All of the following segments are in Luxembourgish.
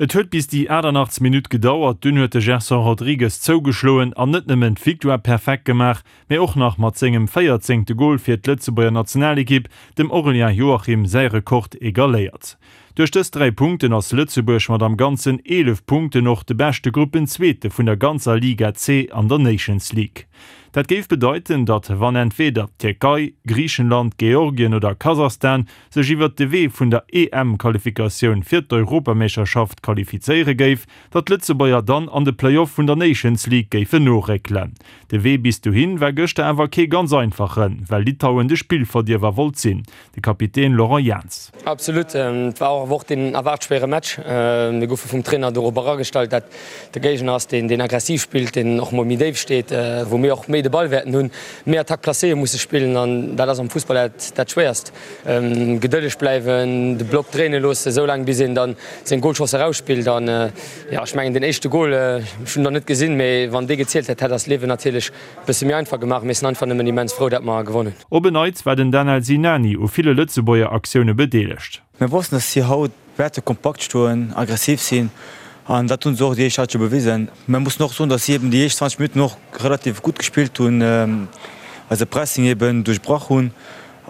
Et huet bis déi 88. Minutt gedauert, dunn huet de Gerson Rodrigues zougeschloen an net nëmmen d'Victoire perfekt gemaach, mee och nach mat sengem véierzéngte Gol fir d'Lëtzebuerger Nationalekipp dem Aurélien Joachim säi Rekord egaléiert. Duerch dës 3 Punkten ass Lëtzebuerg mat am Ganzen 11 Punkten och de beschte Gruppenzweete vun der ganzer Liga C an der Nations League. Dat géif bedeiten, datt wann entweeder d'Tierkei, Griichenland, Georgien oder Kasachstan sech iwwert de Wee vun der EM-Qualifikatioun fir d'Europameeschterschaft qualifizéiere géif, datt d'Lëtzebuerger dann an de Play-off vun der Nations League géifen noréckelen. De Wee bis dohin war gëschter awer kee ganz einfachen, well Litauen de Spillverdierwer wollt sinn. De Kapitän Laurent Jans. Absolut, et war och awer och deen erwaart schwéiere Match. Mir goufe vum Trainer dorop eragestallt, dat de Géigner ass, deen aggressiv spillt, deen och mol méi déif steet, wou mir och méi de Ball wäerten hunn, méi Attaque placéeë musse spillen an dat ass am Fussball dat Schwéierst. Gedëlleg bleiwen, de Block dréine loossen, esou laang bis een dann seng Golchance erausspillt. An jo, ech mengen deen éischte Gol, ech hunn en nach net gesinn, mee wann dee gezielt hätt, hätt eist Liewen natierlech e bësse méi einfach gemaach. Mir sinn einfach nëmmen immens frou, dat mer gewonnen hunn. Op en Neits war den Danel Sinani u ville Lëtzebuerger Aktioune bedeelegt. Mir wossten, dass si haut wäerte kompakt stoen, aggressiv sinn an dat hunn se och déi éischt Halschent bewisen. Mir mussen och soen, dass si eben déi éischt 20 Minutten och relativ gutt gespillt hunn, eise Pressing eben duerchbrach hunn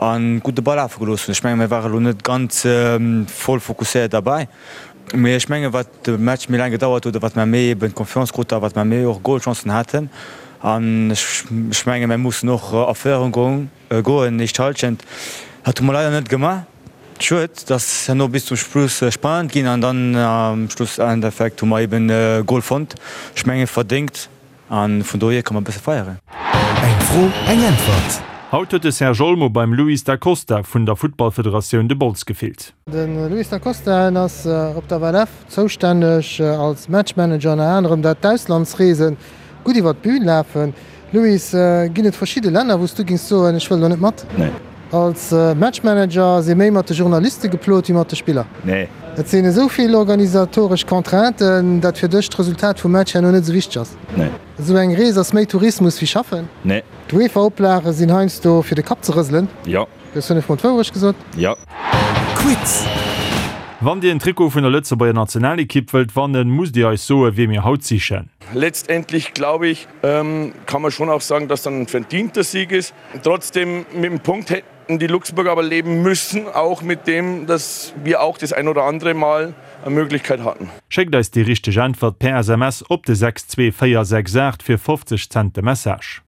a gutt de Ball lafe gelooss hunn. Ech menge mir ware lo net ganz voll fokusséiert derbäi, mee ech menge wat de Match méi laang gedauert huet a wat mer méi eben Confiance kruten a wat mer méi och Golchancen haten an ech menge mir mussen och a Féierung goen. Goen, éischt Halschent. Dat hu mer leider net gemaach. Schued, dass herno bis zum Schluss spannend ginn an dann am Schlussendeffekt hu mer eben e Gol fonnt. Ech menge verdéngt an vun dohier ka mer e bësse feieren. Eng Fro, eng Äntwert. Haut huet de Serge Olmo beim Luis Da Costa vun der Futtballfederatioun de Bols gefillt. De Luis Da Costa en ass op der WLF zoustänneg als Matchmanager ënner anerem dat d'Auslandsreese gutt iwwer d'Bühn lafen. Luis, ginn et verschidde Länner wou s du gings soen, ech wëll do net mat? Nee. Als Matchmanager si méi mat de Journaliste geplot wéi mat de Spiller? Nee. Et sinn esou vill organisatoresch Contrainten, dat fir dech d'Resultat vum Match herno net esou wichteg ass? Nee. Esou eng Rees ass méi Tourismus wéi Schaffen? Nee. D'UEFA-Oplage sinn heiansdo fir de Kapp ze rëselen? Jo. Du hues 5 mol d'Wourecht gesot? Jo. Quiz! Wann Dir en Trikot vun der Lëtzebuerger Nationalekipp wëllt wannen, musst Dir eis soen, wie mir haut sichen. Letztendlich glaube ich, kann man schon auch sagen, dass dann ein verdienter Sieg ist. Trotzdem mit dem Punkt hätten die Luxemburger aber leben müssen, auch mit dem, dass wir auch das ein oder andere Mal eine Möglichkeit hatten. Schéckt eis déi richteg Äntwert per SMS op de 62468 fir 50 Cent de Message.